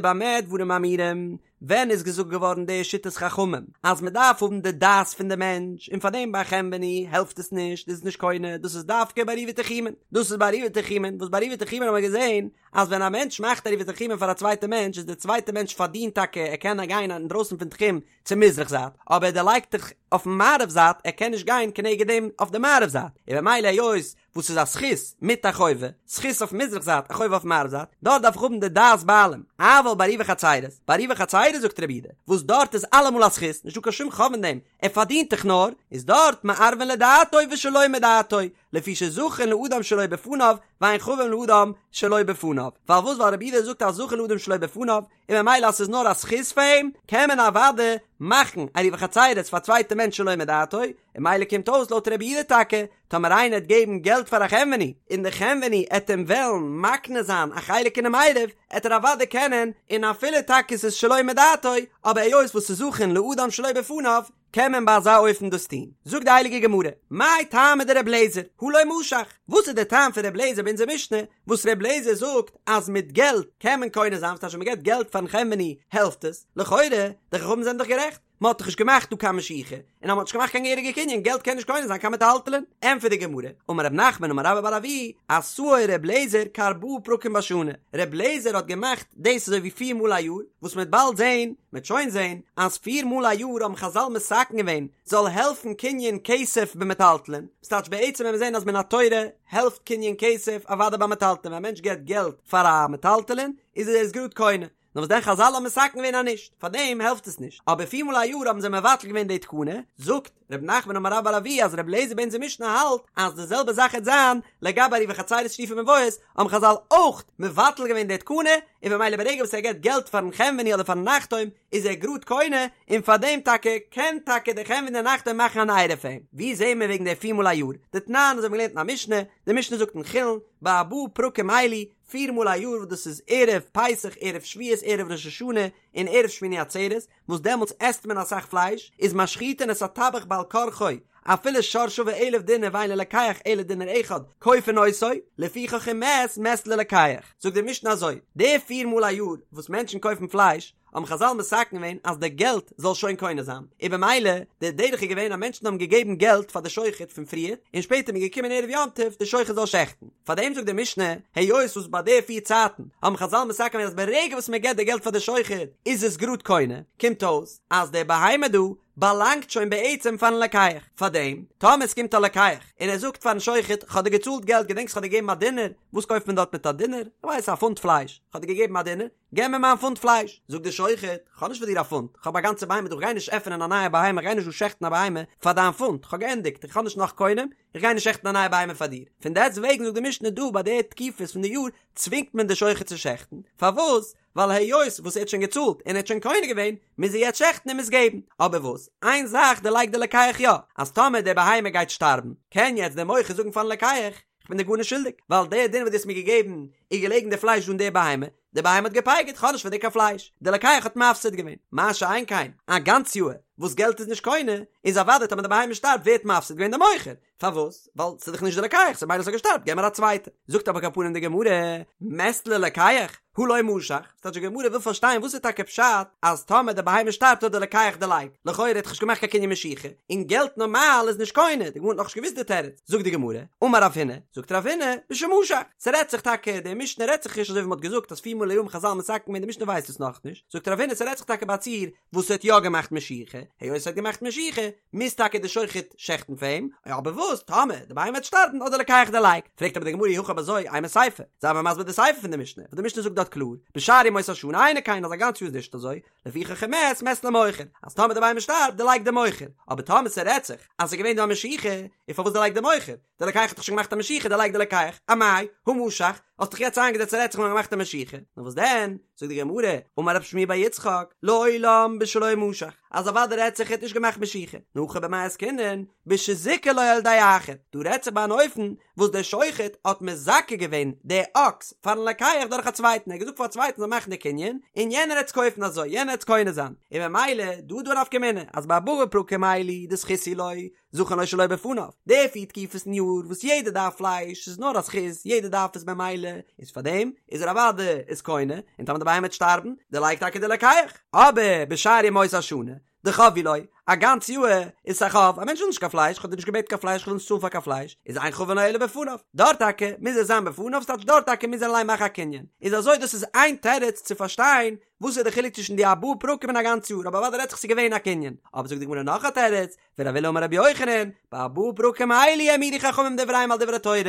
במה דברים אמורים, ווען איז געזאגט געווארן די שיטת חכמים אז מען דארף האבן די דעת פון די מענטש און פארדעם ביי חנווני העלפט עס נישט איז עס נישט קונה דאס איז דווקא ביי עירובי תחומין דאס איז ביי עירובי תחומין וואס ביי עירובי תחומין האבן מיר געזען אז ווען א מענטש מאכט עירובי תחומין פאר א צווייטע מענטש איז די צווייטע מענטש פארדינט טאקע ער קען גיין אינדרויסן פון תחום צו מזרח זייט אבער ער דערלייגט דאך אויפן מערב זייט ער קען נישט גיין כנגד דעם אויף די מערב זייט און במילא היות וואס איז א זכות מיט א חובה, זכות אויף מזרח זייט א חובה אויף מערב זייט, דארט דארף איך האבן די דעת בעלים, אבל בעירובי חצירות, בעירובי חצירות זאגט רבי יהודה, וואס דארט איז אלעמאל א זכות, נישטא קיין שום חוב אין דעם, ער פארדינט דאך נאר, איז דארט מערבין לדעתו ושלא מדעתו, לפי שזכין לאדם שלא בפניו, ואין חבין לאדם שלא בפניו, פארוואס ווייל רבי יהודה זאגט אז זכין לאדם שלא בפניו, און ממילא אז ס'איז נאר א זכות פאר אים, קען מען אוודאי מאכן עירובי חצירות פאר א צווייטע מענטש שלא מדעתו, און ממילא קומט אויס לויט רבי יהודה טאקע, טאמער איינער עט געבן געלט פאר א חנווני, און די חנווני עט אים וועלן מקנה זיין א חלק אינעם עירוב, עט ער אוודאי קענען, און אפילו טאקע ס'איז שלא מדעתו, אבער היות וואס ס'איז זכין לאדם שלא בפניו, קען מען ביי אזא אופן דאס טון. זאגט די הייליגע גמרא, מאי טעמא דר' לעזער, הא לא משך, וואס איז דער טעם פון ר' לעזער ביי אונזער משנה, וואס ר' לעזער זאגט אז מיט געלט קען מען קונה זיין, וואס טייטש ווען מען געבט געלט פארן חנווני העלפט עס, לכאורה, די חכמים זענען דאך גערעכט, מען האט דאך נישט געמאכט דא קיין משיכה, און אז מען האט נישט געמאכט קיין געהעריגע קנין, געלט קען נישט קונה זיין קיין מטלטלין. ענטפערט די גמרא, אמר רב נחמן אמר רבה בר אבוה, עשאו ר' לעזער כארבעה פרקים בשנה, ר' לעזער האט געמאכט דאס אזוי ווי פיר מאל א יאר, וואס מען וועט באלד זען, מען וועט שוין זען, אז פיר מאל א יאר האבן חזל מתקן געווען, זאל העלפן קנין כסף במטלטלין, ס'טייטש בעצם ווען מיר זען אז מן התורה העלפט קנין כסף אוודאי ביי מטלטלין, ווען א מענטש געבט געלט פאר א מטלטלין איז ער עס גראד קונה, נאר וואס דען חזל האבן מתקן געווען אז נישט, פאר דעם העלפט עס נישט, אבער פיר מאל א יאר האבן זיי מבטל געווען די תקנה, זאגט ר' נחמן אמר רבה בר אבוה אז ר' אליעזר ביי אונזער משנה האלט אז די זעלבע זאך העט זיין לגבי עירובי חצירות שיתופי מבואות, האבן חזל אויך מבטל געווען די תקנה, און במילא ברגע וואס ער געבט געלט פארן חנווני אדער פארן נחתום איז ער גראד קונה, און פאר דעם טאקע קען טאקע דער חנווני און נחתום מאכן אן עירוב פאר אים. ווי זעהן מיר וועגן די פיר מאל א יאר? דתנן אזוי האבן מיר געלערנט אין א משנה, די משנה זאגט אין חולין, בארבעה פרקים אלו, פיר מאל א יאר וואס דאס איז ערב פסח, ערב שבועות, ערב ראש השנה, און ערב שמיני עצרת, וואס דעמאלטס עסט מען אסאך פלייש, איז משחיטין את הטבח בעל כרחו, אפילו שור שווה אלף דינר ואין ללוקח אלא דינר אחד, כופין אותו, לפיכך אם מת, מת ללוקח. זאגט די משנה אזוי, די פיר מאל א יאר וואס מענטשן קויפן פלייש, האבן חזל מתקן געווען אז די געלט זאל שוין קונה זיין, און במילא די דרך איז געווען אז מענטשן האבן געגעבן געלט פאר די שוחט פון פריער, און שפעטער איז מען געקומען ערב יום טוב די שוחט זאל שעכטן. פאר דעם זאגט די משנה, היות וואס ביי די פיר צייטן האבן חזל מתקן געווען אז ברגע וואס מען געבט די געלט פאר די שוחט איז עס גראד קונה, קומט אויס אז די בהמה דא באלאנגט שוין בעצם פארן לוקח, פאר דעם טאמער עס קומט א לוקח און ער זאגט פארן שוחט כ'האב דיר געצאלט געלט געדענקסט כ'האב דיר געגעבן א דינר, וואס קויפט מען דארט מיט א דינר? כ'ווייס א פונט פלייש, כ'האב דיר געגעבן א דינר, געב מיר מיין פונט פלייש! זאגט דער שוחט, כ'האב נישט פאר דיר א פונט, כ'האב א גאנצע בהמה דא, כ'גיי נישט עפענען א נייע בהמה, כ'גיי נישט דא שעכטן א בהמה פאר דיין פונט, כ'האב געענדיגט, איך האב נישט נאך קונים, איך גיי נישט שעכטן א נייע בהמה פאר דיר. פון דעסט וועגן זאגט די משנה דא ביי די תקופות פון די יאר צווינגט מען די שוחט צו שעכטן, פארוואס? ווייל היות וואס ער האט שוין געצאלט און ער האט שוין קונה געווען, מוז ער יעצט שעכטן און מוז געבן. אבער וואס? איין זאך דערלייגט דער לוקח יא, אז טאמער די בהמה גייט שטארבן, קען יעצט דער מוכר זאגן פארן לוקח, כ'בין דיר גארנישט שולדיג, ווייל דער דינר וואס דו האסט מיר געגעבן איז געלעגן די פלייש דא אין די בהמה, די בהמה האט געפייגערט, כ'האב נישט פאר דיר קיין פלייש, די לוקח האט מפסיד געווען, מה שאין כן, א גאנץ יאהר וואס געלט איז נישט קונה, איז אוודאי טאמער די בהמה שטארבט ווערט מפסיד געווען די מוכר, פארוואס? ווייל ס'איז דאך נישט די לוקח, ס'איז מילא ס'האט געשטארבט, געב מיר א צווייטע. זאגט אבער על כל פנים די גמרא, מת ללוקח? הא לא משך, ס'טייטש די גמרא וויל פארשטיין וואס איז טאקע פשט אז טאמער די בהמה שטארבט האט די לוקח דערלייגט, לכאורה האט דאך נישט געמאכט קיין קנין משיכה, און געלט נארמאל איז נישט קונה, די גמרא האט נאכנישט געוואוסט די תירוץ, זאגט די גמרא, אמר רב הונא, זאגט רב הונא, בשמשך, ס'רעדט זיך טאקע, די משנה רעדט זיך נישט אזוי ווי מ'האט געזאגט אז פיר מאל א יאר האבן חזל מתקן געווען, די משנה ווייסט עס נאכנישט, זאגט רב הונא ס'רעדט זיך טאקע ביי א ציור וואס האט יא געמאכט משיכה, היות ער האט געמאכט משיכה, מוז טאקע די שוחט שעכטן פאר אים, אבער וואס טאמער די בהמה וועט שטארבן האט די לוקח דערלייגט, פרעגט אבער די גמרא אי הכי אויב אזוי אימא סיפא, זיי מיר מסביר די סיפא פון די משנה, וואס די משנה זאגט דארט קלאר, בשאר ימות השנה אינו כן אז א גאנץ יאר איז נישט אזוי, לפיכך אם מת מת למוכר, אז טאמער די בהמה שטארבט דערלייגט די מוכר, אבער טאמער ס'רעדט זיך אז ס'איז געווען דא א משיכה, און פארוואס דערלייגט די מוכר? די לוקח האט דאך שוין געמאכט א משיכה דערלייגט די לוקח, אמאי, הא משך, האסט דאך יעצט איינגעזעצט ס'רעדט זיך מ'האט געמאכט א משיכה, נאר וואס דען, זאגט די גמרא, אמר רב שמואל בר יצחק, לעולם בשלא משך, אז אוודאי רעדט זיך ער האט נישט געמאכט משיכה, נאר הכא במאי עסקינן, בשזיכה לו על ידי אחר, דא רעדט זיך ביי אן אופן וואס דער שוחט האט מזכה געווען די אקס פארן לוקח דורך א צווייטן, ער האט געזאגט פאר א צווייטן זאל מאכן די קנין, און יענער העט עס קויפן אזוי, יענער העט עס קונה זיין, און ממילא דא איז דא א נפקא מינה, אז בארבעה פרקים אלו דזכות הוא לו, זכין לו שלא בפניו, די פיר תקופות אין יאר וואס יעדער דארף פלייש איז נאר א זכות, יעדער דארף עס במילא, איז פאר דעם איז ער אוודאי איז קונה, און טאמער די בהמה וועט שטארבן, דערלייגט טאקע די לוקח. אבער בשאר ימות השנה, דחוב הוא לו, א גאנץ יאר איז עס א חוב, א מענטש וויל נישט קיין פלייש, כ'האב דיר נישט געבעטן קיין פלייש, כ'וויל נישט צאלן פאר קיין פלייש, איז אין חבין לו אלא בפניו, דארט טאקע מוז ער זיין בפניו, ס'טייטש דארט טאקע מוז ער אליין מאכן א קנין. איז אזוי דאס איז איין תירוץ צו פארשטיין וואס איז די חילוק צווישן די ארבעה פרקים און א גאנץ יאר, אבער אוודאי רעדט זיך ס'איז געווען א קנין. אבער זאגט די גמרא נאך א תירוץ, ורב עולא אמר רבי יוחנן, בארבעה פרקים אלו העמידו חכמים דבריהם על דברי תורה,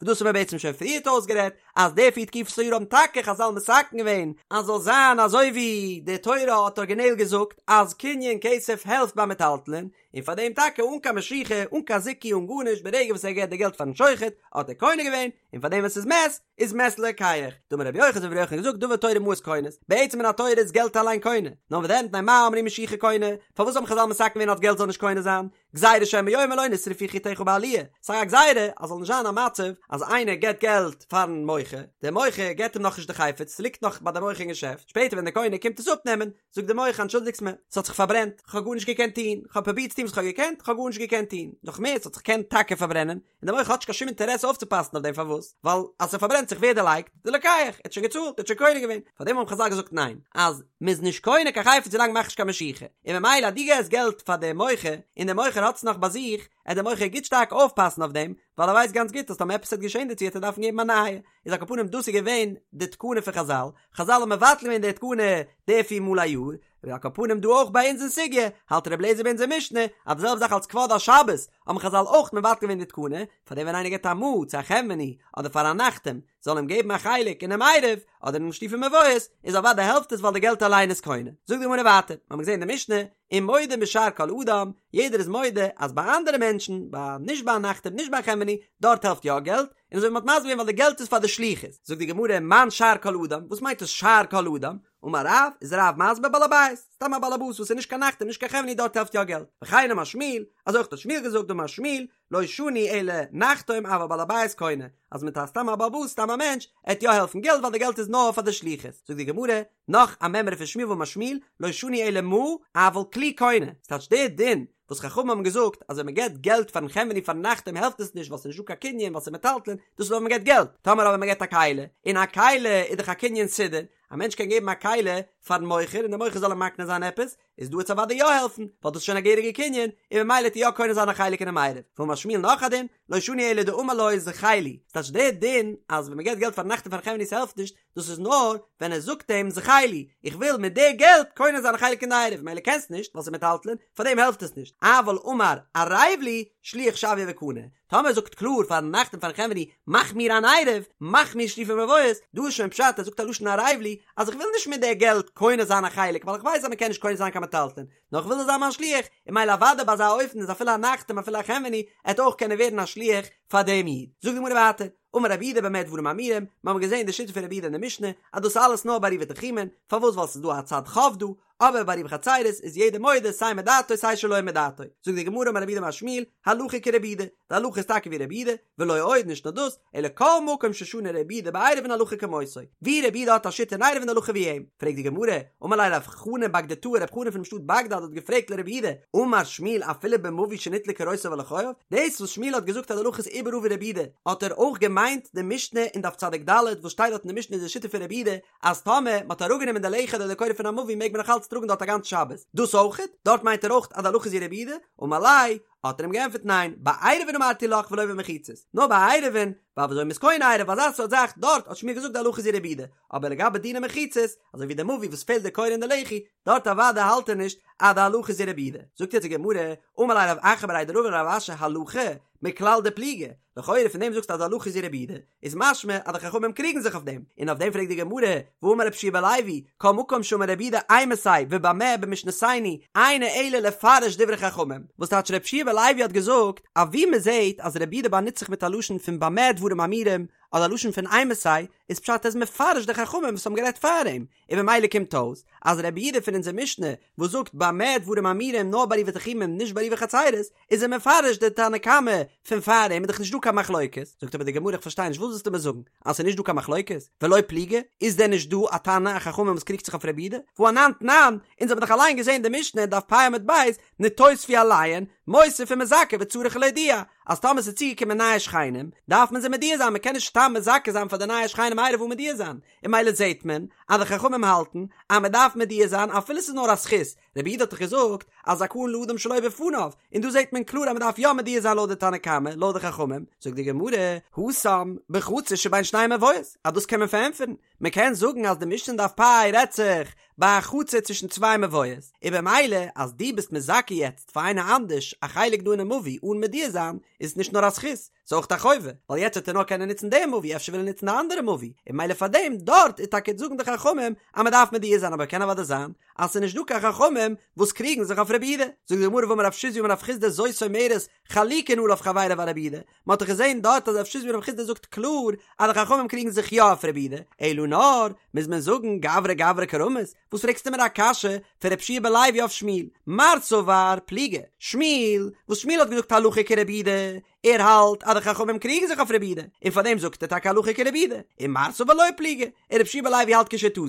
וואס דאס האבן מיר בעצם שוין פריערט אויסגערעדט, אז די פיר תקופות היאר האבן טאקע חזל מתקן געווען אז זאל זיין אזוי ווי די תורה האט ארגינעל געזאגט אז קנין כסף העלפט ביי מטלטלין, און פאר דעם טאקע אן קיין משיכה, אן קיין זיכוי אן גארנישט, ברגע וואס ער געבט די געלט פארן שוחט האט ער קונה געווען, און פאר דעם ווען ס'איז מת, איז מת ללוקח. דאמר רבי יוחנן אזוי ווי רבי יוחנן האט געזאגט דבר תורה מעות קונות, בעצם מן התורה איז געלט אליין קונה, נאר וואס דען מפני מה אמרו משיכה קונה, פארוואס האבן חזל מתקן געווען אז געלט זאל נישט קונה זיין, גזירה שמא יאמר לא נשרפו חיטיך בעליה, ס'איז א גזירה אז זאל נישט זיין א מצב אז איינער געט געלט פארן מוכר, דער מוכר געט אים נאכנישט די חפץ, ס'ליגט נאך ביי די מוכר אין געשעפט, שפעטער ווען דער קונה קומט עס אפנעמען, זאגט דער מוכר אנטשולדיגטס מיר, ס'האט זיך פארברענט, כ'האב גארנישט געקענט טון, כ'האב פרובירט צו טון וואס כ'האב געקענט, כ'האב גארנישט געקענט טון, נאך מער, ס'האט זיך געקענט טאקע פארברענען, און דער מוכר האט נישט קיין שום אינטערעס אויפצופאסן אויף דעם פארוואס? ווייל אז ס'פארברענט זיך ווער דערלייגט? די לוקח, ער האט שוין געצאלט, ער האט שוין קונה געווען, פארדעם האבן חזל געזאגט ניין, אז מ'איז נישט קונה קיין חפץ ווילאנג מ'מאכט נישט קיין משיכה, און ממילא אז דו געסט געלט פאר דעם מוכר, און דער מוכר האט עס נאך ביי זיך, עט דער מוכר גוט שטארק אויפפאסן אויף דעם, ווייל ער ווייסט גאנץ גוט אז טאמער עפעס וועט געשען דערצו וועט ער דארפן געבן א נייע, איז על כל פנים דאס איז געווען די תקנה פון חזל, חזל האבן מבטל געווען די תקנה די פיר מאל א יאר, ועל כל פנים דא אויך ביי אונז אין סוגיא, האלט ר' אליעזר ביי אונזער משנה, אז די זעלבע זאך אלס כבוד השבת, האבן חזל אויך מבטל געווען די תקנה, פאר דעם ווען איינער געבט א מעה צו א חנווני, אדער פאר א נחתום, זאל אים געבן א חלק אינעם עירוב, אדער אינעם שיתופי מבואות, איז אוודאי העלפט עס ווייל די געלט אליין איז קונה. זאגט די גמרא ווייטער, מיר האבן געזען אין די משנה, ומודים בשאר כל אדם, יעדער איז מודה אז ביי אנדערע מענטשן, ביי נישט ביי א נחתום נישט ביי א חנווני, דארט העלפט יא געלט, און אזוי ווי מ'האט מסביר געווען ווייל די געלט איז פאר די שליחות. זאגט די גמרא, מאן שאר כל אדם, וואס מיינט דאס שאר כל אדם? אמר רב, איז רב מסביר בעל הבית, סתם א בעל הבית וואס איז נישט קיין נחתום נישט קיין חנווני דארט העלפט יא געלט, וכן אמר שמואל, אזוי אויך האט שמואל געזאגט דאמר שמואל, לא שנו אלא נחתום אבל בעל הבית קונה, אז מיט א סתם א בעל הבית סתם א מענטש, עט יא העלפן געלט ווייל די געלט איז נאר פאר די שליחות, זאגט די גמרא, נאך א מימרא פון שמואל ואמר שמואל, לא שנו אלא מעה, אבל כלי קונה, ס'טייטש די דין וואס חכמים האבן געזאגט אז ווען מען געבט געלט פארן חנווני פארן נחתום העלפט עס נישט ווייל ס'איז נישט דא קיין קנין ווייל ס'איז מטלטלין, דאס איז אויב מען געבט געלט, טאמער אבער מען געבט א כלי, און א כלי איז דאך א קנין סודר, א מענטש קען געבן א כלי פארן מוכר און דער מוכר זאל אים מקנה זיין עפעס, איז דא עט עס אוודאי יא העלפן, ווייל דאס איז שוין א געהעריגע קנין, און ממילא עט ער יא קונה זיין א חלק אינעם עירוב. ואמר שמואל נאך א דין, לא שנו אלא דאמר לו זכה לי, ס'טייטש דער דין אז ווען מ'געבט געלט פארן נחתום פארן חנווני ס'העלפט נישט, דאס איז נאר ווען ער זאגט אים זכה לי, איך וויל מיט די געלט קונה זיין א חלק אין די עירוב, ממילא קענסט נישט ווייל ס'איז מטלטלין, פארדעם העלפט עס נישט, אבל אמר ערב לי, שליח שוויה וקני, טאמער ער זאגט קלאר פארן נחתום פארן חנווני מאך מיר אן עירוב, מאך מיר שיתופי מבואות, דא איז שוין פשט ער זאגט א לשון ערב לי, אז איך וויל נישט מיט די געלט קונה זיין א חלק ווייל איך ווייס אז מען קען נישט קונה זיין קיין מטלטלין, נאר איך וויל זאל זיין מיין שליח, און ממילא אוודאי ביי אזא אופן איז אפילו א נחתום אפילו א חנווני עט אויך קענען ווערן א שליח פאר דעם איד. זאגט די גמרא ווייטער, אמר רב יהודה במה דברים אמורים, מיר האבן געזען די שיטה פון רב יהודה אין די משנה, אז דאס איז אלעס נאר ביי עירובי תחומין, פארוואס ווייל ס'איז דא א צד חוב דא, אבער ביי עירובי חצירות איז יעדער מודה סיי מדעתו סיי שלא מדעתו. זאגט די גמרא אמר רב יהודה אמר שמואל, הלכה כרבי יהודה, די הלכה איז טאקע ווי רבי יהודה, ולא עוד נישט נאר דאס, אלא כל מקום ששנה רבי יהודה בעירובין הלכה כמותו, ווי רבי יהודה האט א שיטה אין עירובין די הלכה ווי אים. פרעגט די גמרא, אמר ליה רב חנן בגדתאה רב חנן פונעם שטאט בגדד האט געפרעגט לרבי יהודה, אמר שמואל אפילו במבוי שניטלו קורותיו על לחייו, דאס וואס שמואל האט געזאגט אז די הלכה איז. איבעראל ווי רבי יהודה, האט ער אויך געמיינט די משנה אין דף צדיק ד' וואס שטייט דארט אין די משנה איז די שיטה פון רבי יהודה אז טאמער מען האט אראפגענומען די לחי אדער די קורה פון א מבוי מעג מען נאך אלץ טראגן דארט א גאנץ שבת, דאס אויכעט? דארט מיינט ער אויך אז די הלכה איז ווי רבי יהודה? אמר ליה, האט ער אים געענטפערט ניין, בעירובין אמרתי לך ולא במחיצות, נאר ביי עירובין, ווייל וויאזוי מ'איז קונה עירוב אזא סארט זאך, דארט האט שמואל געזאגט די הלכה איז ווי רבי יהודה, אבער לגבי דיני מחיצות, אזוי ווי די מבוי וואס פעלט די קורה און די לחי, דארט אוודאי האלט ער נישט אז די הלכה איז ווי רבי יהודה. זאגט יעצט די גמרא, אמר ליה רב אחא בריה דרבא לרב אשי הלכה, מכלל דפליגי, לכאורה פון דעם זאגסטו אז די הלכה איז ווי רבי יהודה, איז משמע אז די חכמים קריגן זיך אויף דעם, און אויף דעם פרעגט די גמרא, והאמר רבי יהושע בן לוי, כל מקום שאמר רבי יהודה אימתי ובמה במשנתנו, אינו אלא לפרש דברי חכמים, וואס טייטש רבי יהושע בן לוי האט געזאגט אז ווי מען זעט אז רבי יהודה באנוצט זיך מיט א לשון פון במה דברים אמורים, אדער א לשון פון אימתי, איז פשט ער איז מפרש די חכמים וואס האבן גערעדט פאר אים, און ממילא קומט אויס אז רבי יהודה פון אונזער משנה וואס זאגט במה דברים אמורים נאר בעירובי תחומין נישט בעירובי חצירות איז ער מפרש די תנא קמא פון פאר אים איז דאך נישט דא קיין מחלוקת, זאגט אבער די גמרא איך פארשטיי נישט וואס ווילסטו מיר זאגן אז ס'איז נישט דא קיין מחלוקת ולא פליגי איז דען נישט דא א תנא א חכמים וואס קריגט זיך אויף רבי יהודה והא אנן תנן אונז האבן דאך אליין געזען די משנה אין דף פ עמוד ב' נתוספו עליהן מוסיף ומזכה וצריך להודיע אז טאמער ס'איז צוגעקומען נייע שכנים דארף מען זיי מודיע זיין מ'קען נישט סתם מזכה זיין פאר די נייע שכנים עירוב אן מודיע זיין און ממילא זעהט מען אז די חכמים האלטן אז מען דארף מודיע זיין אפילו ס'איז נאר א זכות, רבי יהודה האט דאך געזאגט אז זכאין לאדם שלא בפניו, און דא זעהט מען קלאר אז מען דארף יא מודיע זיין לויט די תנא קמא, לויט די חכמים, זאגט די גמרא, התם בחצר שבין שני מבואות, אז דאס קען מען פארענטפערן, מען קען זאגן אז די משנה אין דף פ' רעדט זיך ביי א חצר צווישן צוויי מבואות, און במילא אז דו ביסט מזכה יעצט פאר איינער אנדערש א חלק דא אינעם מבוי אן מודיע זיין, איז עס נישט נאר א זכות, ס'איז אויך א חובה, ווייל יעצט וועט ער נאר קענען נוצן די מבוי, אפשר וויל ער נוצן די אנדערע מבוי, און ממילא פאר דעם דארט איז טאקע זאגן די חכמים אז מען דארף מודיע זיין אבער קען אוודאי זיין אז ס'איז נישט דא קיין חכמים וואס קריגן זיך אויף רבי יהודה, זאגט די גמרא והאמר רב שיזבי אמר רב חסדא זאת אומרת חלוקין עליו חביריו על רבי יהודה, מען האט דאך געזען דארט אז רב שיזבי אמר רב חסדא זאגט קלאר אז די חכמים קריגן זיך יא אויף רבי יהודה, אלא נאר מוז מען זאגן גברא גברא קרמית, וואס פרעגסטו מיר א קשיא פון רבי יהושע בן לוי אויף שמואל? מר סבר פליגי, שמואל, וואס שמואל האט געזאגט הלכה כרבי יהודה, ער האלט אז די חכמים קריגן זיך אויף רבי יהודה, און פאר דעם זאגט ער טאקע הלכה כרבי יהודה, און מר סבר לא פליגי, און רבי יהושע בן לוי האלט כשיטתו,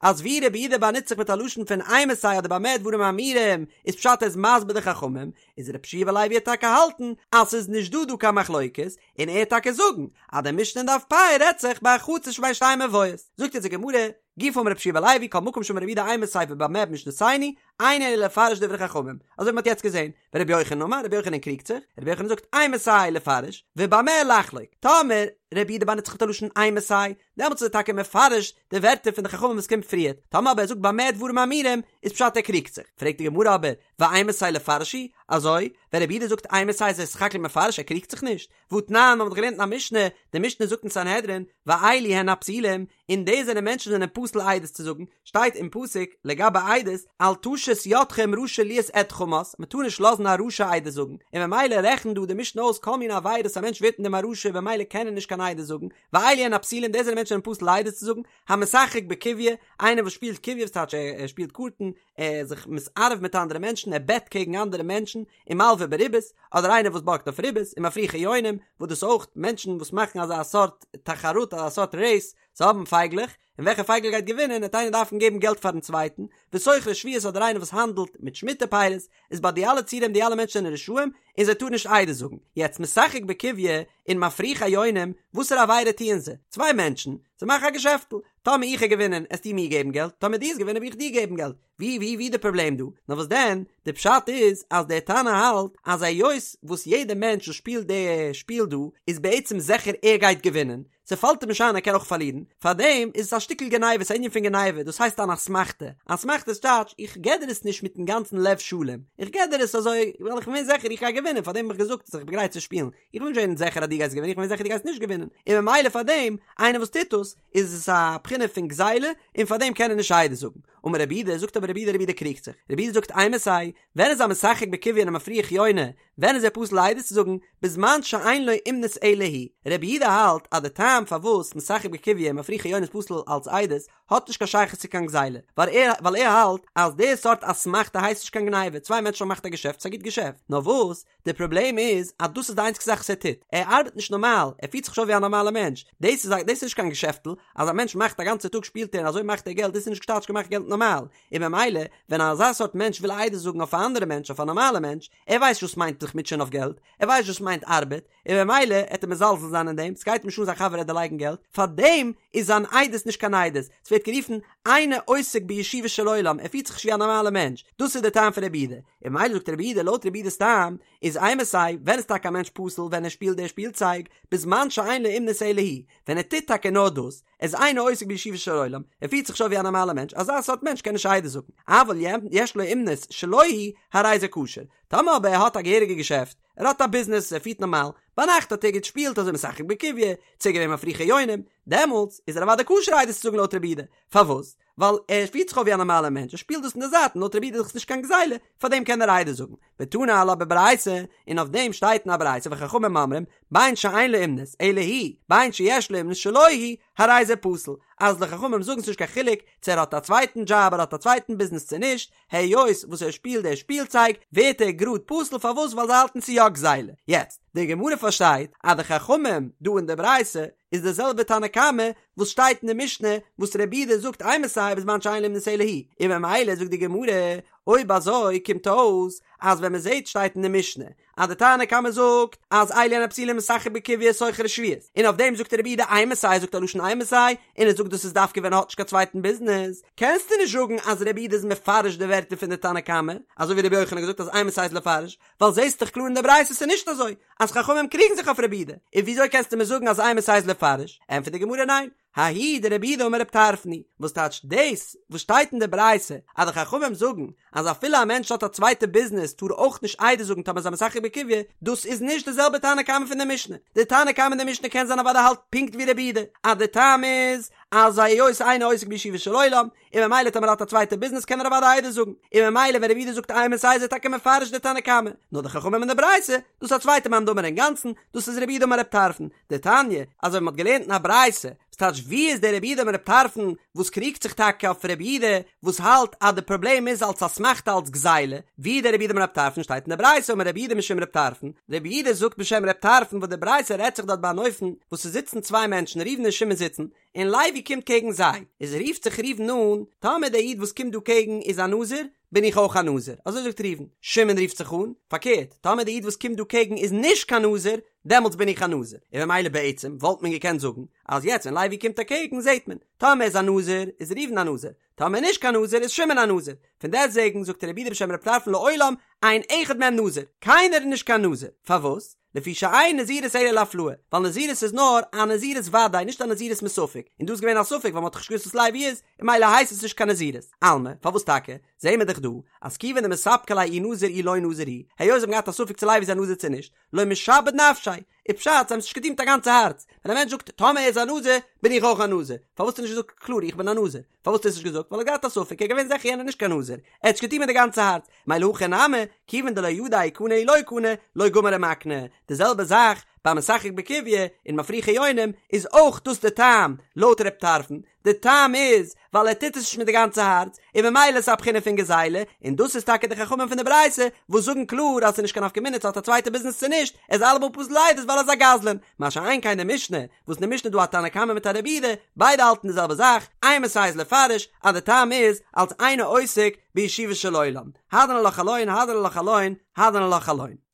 אז ווי רבי יהודה באנוצט זיך מיט א לשון פון אימתי אדער במה דברים אמורים, איז פשט ער איז מסביר די חכמים, איז רבי יהושע בן לוי וועט טאקע האלטן אז ס'איז נישט דא דא קיין מחלוקת, און ער וועט טאקע זאגן אז די משנה אין דף פ' רעדט זיך ביי א חצר שבין שתי מבואות. זאגט אונז די גמרא, גופא אמר רבי יהושע בן לוי כל מקום שאמר רבי יהודה אימתי ובמה במשנתנו, אינו אלא לפרש דברי חכמים, אזוי ווי מ'האט יעצט געזען, ורבי יוחנן אמר, רבי יוחנן קריגט זיך, רבי יוחנן זאגט אימתי לפרש, ובמה לחלוק, טאמער רבי יהודה באנוצט זיך מיט א לשון אימתי, דעמאלטס איז ער טאקע מפרש די ווערטער פון די חכמים וואס קומט פריערט, טאמער אבער ער זאגט במה דברים אמורים, איז פשט ער קריגט זיך, פרעגט די גמרא אבער, ואימתי לפרש הוא, אזוי, ווען רבי יהודה זאגט אימתי איז ער סך הכל מפרש ער קריגט זיך נישט, והתנן, מ'האט דאך געלערנט אין א משנה, די משנה זאגט אין סנהדרין, ואלו הן הפסולים, און די זענען מענטשן זענען פסול עדות צו זאגן, שטייט אין פסוק לגבי עדות, אל תשת ידך עם רשע להיות עד חמס, מען טאר נישט לאזן א רשע עדות זאגן, און ממילא רעכנט דא די משנה אויס כל מיני עבירות א מענטש ווערט אין דעם א רשע במילא קען ער נישט קיין עדות זאגן, ואלו הן הפסולים די זענען מענטשן זענען פסול עדות צו זאגן, המשחק בקוביא, איינער וואס שפילט קוביא וואס טייטש ער שפילט קארטן, ער איז זיך מתערב מיט אנדערע מענטשן, ער בעט קעגן אנדערע מענטשן, ומלוה בריבית, אדער איינער וואס בארגט אויף ריבית, ומפריחי יונים, וואס דאס אויך מענטשן וואס מאכן אזא סארט תחרות אזא סארט רעיס, זיי האבן פייגלעך, און וועלכע פייגל גייט געווינען, וועט איינער דארפן געבן געלט פארן צווייטן, וסוחרי שביעית אדער איינער וואס האנדלט מיט שמיטה פירות, איז ביי די אלע ציורים די אלע מענטשן זענען רשעים, און זיי טארן נישט עדות זאגן. יעצט משחק בקוביא און מפריחי יונים, וואסערע עבירה טוען זיי? צוויי מענטשן, זיי מאכן א געשעפטל, טאמער איך האב געווינען עסטו מיר געבן געלט, טאמער דו האסט געווינען וועל איך דיר געבן געלט, ווי ווי ווי די פראבלעם דא? נאר וואס דען, די פשט איז אז דער תנא האלט אז היות וואס יעדער מענטש וואס שפילט די שפיל דא איז בעצם זיכער ער גייט געווינען, ס'פאלט אים נישט איין ער קען אויך פארלירן, פארדעם איז עס א שטיקל גניבה, ס'איז א ענין פון גניבה, דאס הייסט אן אסמכתא, אסמכתא איז טייטש איך געב דיר עס נישט מיטן גאנצן לב שלם, איך געב דיר עס אזוי ווייל איך בין זיכער איך גיי געווינען פארדעם האב איך געזאגט אז איך בין גרייט צו שפילן, איך בין נישט געווען זיכער אז דו גייסט געווינען, איך בין זיכער דו גייסט נישט געווינען, און ממילא פארדעם איינער וואס טוט דאס איז עס א בחינה פון גזילה און פארדעם קען ער נישט עדות זאגן. אמר רבי יהודה, זאגט אבער רבי יהודה, רבי יהודה קריגט זיך, רבי יהודה זאגט אימתי, ווען איז א משחק בקוביא און א מפריח יונה, ווען איז ער פסול עדות צו זאגן, בזמן שאין לו אומנות אלא היא, רבי יהודה האלט אז די טעם פארוואס משחק בקוביא און מפריחי יונה איז פסול אלץ עדות, האט נישט קיין שייכות צו קיין גזילה, ווייל ער ווייל ער האלט אז די סארט אסמכתא הייסט נישט קיין גניבה, צוויי מענטשן האבן געמאכט א געשעפט, ס'איז א גוט געשעפט, נאר וואס, די פראבלעם איז אז דאס איז די איינציגסטע זאך וואס ער טוט, ער ארבעט נישט נארמאל, ער פירט זיך נישט אויף ווי א נארמאלע מענטש, דאס איז א דאס איז נישט קיין געשעפטל, אז א מענטש מאכט א גאנצע טאג שפילט ער און אזוי מאכט ער געלט, דאס איז נישט טייטש געמאכט געלט נארמאל, און במילא ווען אזא סארט מענטש וויל עדות זאגן אויף א אנדערע מענטש אויף א נארמאלע מענטש, ער ווייסט וואס מיינט זיך מוטשען אויף געלט, ער ווייסט וואס מיינט ארבעט, און ממילא עט ער מזלזל זיין אין דעם, ס'גייט אים נישט אן זיין חבר עט דערלייגן געלט, פארדעם איז זיין עדות נישט קיין עדות, ס'ווערט גערופן אינו עוסק בישובו של עולם, ער פירט זיך נישט ווי א נארמאלער מענטש, דאס איז דער טעם פון רבי יהודה, און ממילא זאגט רבי יהודה לויט רבי יהודה'ס טעם איז אימתי, ווען איז טאקע א מענטש פסול ווען ער שפילט די שפילצייג, בזמן שאין לו אומנות אלא היא, ווען ער טוט טאקע נאר דאס, ער איז אינו עוסק בישובו של עולם, ער פירט זיך נישט אויף ווי א נארמאלער מענטש, אזא סארט מענטש קען נישט עדות זאגן, אבל יש לו אומנות שלא היא, הרי זה כשר, טאמער אבער ער האט א געהעריגע געשעפט, ער האט א ביזנעס, ער פירט נארמאל, ביינאכט האט ער געשפילט אזוי משחק בקוביא, צו געווען מפריחי יונים, דעמאלטס איז ער אוודאי כשר עדות צו זאגן לויט רבי יהודה, פארוואס? ווייל ער פירט זיך אויף ווי א נארמאלער מענטש, ער שפילט דאס אין די זייט און לויט רבי יהודה איז דאך נישט קיין גזילה, פארדעם קען ער עדות זאגן. ותני עלה בברייתא, און אויף דעם שטייט אין א ברייתא וחכמים אומרים, בין שאין לו אומנות, אלא היא, בין שיש לו אומנות שלא היא, הרי זה פסול, אז די חכמים זאגן ס'נישט קיין חילוק צו ער האט א צווייטן דזשאב ער האט א צווייטן ביזנעס צו נישט, היות וואס ער שפילט די שפילצייג ווערט ער גראד פסול פארוואס ווייל זיי האלטן ס'איז יא גזילה. יעצט, די גמרא פארשטייט אז די חכמים דא אין די ברייתא איז די זעלבע תנא קמא וואס שטייט אין די משנה וואס רבי יהודה זאגט אימתי בזמן שאין לו אומנות אלא היא, און ממילא זאגט די גמרא אויב אזוי קומט אויס אז ווען מ'זעט שטייט אין די משנה אז די תנא קמא זאגט אז אלו הן הפסולים משחק בקוביא סוחר שביעית, און אויף דעם זאגט רבי יהודה אימתי זאגט א לשון אימתי, און ער זאגט דאס איז דווקא ווען ער האט נישט קיין צווייטן ביזנעס, קענסטו נישט זאגן אז רבי יהודה איז מפרש די ווערטער פון די תנא קמא, אזוי ווי רבי יוחנן האט געזאגט אז אימתי איז לפרש, ווייל זעסט דאך קלאר אין די ברייתא ס'איז נישט אזוי, אז חכמים קריגן זיך אויף רבי יהודה, און וויאזוי קענסטו מיר זאגן אז אימתי איז לפרש, ענטפערט די גמרא ניין, ההיא דרבי יהודה אמר רב טרפון היא, וואס טייטש דאס וואס שטייט אין די ברייתא אז די חכמים זאגן אז אפילו א מענטש האט א צווייטע ביזנעס טאר אויך נישט עדות זאגן טאמער איז א משחק בקוביא, דאס איז נישט די זעלבע תנא קמא פון די משנה, די תנא קמא אין די משנה קען זיין אוודאי האלט פונקט ווי רבי יהודה אז די טעם איז אז היות אינו עוסק בישובו של עולם און ממילא טאמער האט א צווייטע ביזנעס קען ער אוודאי עדות זאגן, און ממילא ווען רבי יהודה זאגט אימתי איז ער טאקע מפרש די תנא קמא, נאר די חכמים אין די ברייתא, דאס איז א צווייטע מאן דאמר אינגאנצן, דאס איז רבי יהודה אמר רב טרפון, דתניא, אזוי ווי מ'האט געלערנט אין א ברייתא, וואס טייטש ווי איז דער רבי יהודה אמר רב טרפון וואס קריגט זיך טאקע אויף רבי יהודה וואס האלט אז די פראבלעם איז אלס אסמכתא אלס גזילה, ווי איז דער רבי יהודה אמר רב טרפון שטייט אין די ברייתא אמר רבי יהודה משום רב טרפון, רבי יהודה זאגט בשם רב טרפון וואס די ברייתא רעדט זיך דארט ביי אן אופן וואס ס'זיצן צוויי מענטשן ראובן און שמעון זיצן, און לוי קומט קעגן זיי, איז רופט זיך ראובן אן, טאמער דער איד וואס קומט דא קעגן איז א נזיר, בין איך אויך א נזיר, אזוי זאגט ראובן, שמעון רופט זיך אן, פארקערט, טאמער דער איד וואס קומט דא קעגן איז נישט קיין נזיר, דעמאלטס בין איך א נזיר, און ממילא בעצם וואלט מען געקענט זאגן, אז יעצט ווען לוי קומט אקעגן זעט מען, טאמער איז א נזיר, איז ראובן א נזיר, טאמער נישט קיין נזיר איז שמעון א נזיר, פון דעסטוועגן זאגט רבי יהודה בשם רב טרפון לעולם אין אחד מהם נזיר, קיינער איז נישט קיין נזיר, פארוואס? לפי שאין נזירות אלא להפלאה, ווייל נזירות איז נאר א נזירות ודאי נישט א נזירות מספק, און דא איז געווען א ספק ווייל מ'האט דאך נישט געוואוסט וואס לוי איז, און ממילא הייסט עס נישט קיין נזירות. אלמא, פארוואס טאקע? זעהן מיר דאך דא, אז כיוון דמספקא ליה אי נזיר אי לא נזיר הוא, היות זיי האבן געהאט א ספק צו לוי איז א נזיר צו נישט, לא משעבד נפשיה, איז פשט זיי האבן עס נישט געטון מיט א גאנצע הארץ, ווען א מענטש זאגט טאמער ער איז א נזיר, בין איך אויך א נזיר, פארוואס האט ער נישט געזאגט קלאר איך בין א נזיר? פארוואס האט ער עס נישט געזאגט? ווייל ער האט געהאט א ספק, ער איז געווען זיכער יענער איז נישט קיין נזיר, ער האט עס געטון מיט די גאנצע הארץ, מילא הכא נמי, כיוון דלא ידע אי קני אי לא קני, לא גמר ומקנה, די זעלבע זאך ביי משחק בקוביא און מפריחי יונים איז אויך דאס די טעם לויט ר' טרפון, די טעם איז ווייל ער טוט עס נישט מיט די גאנצע הארץ, און ממילא איז א בחינה פון גזילה, און דאס איז טאקע די חכמים פון די ברייתא וואס זאגן קלאר אז ס'איז נישט קיין נפקא מינה צו האט א צווייטע ביזנעס צו נישט, ער איז אלעמאל פסול לעדות ווייל ער איז א גזלן, מה שאין כן די משנה, וואס אין די משנה איז דא א תנא קמא מיט א רבי יהודה, ביידע האלטן די זעלבע זאך, אימתי איז לפרש אז די טעם איז אלס אינו עוסק בישובו של עולם, הדרן עלך חלון, הדרן עלך חלון, הדרן עלך חלון.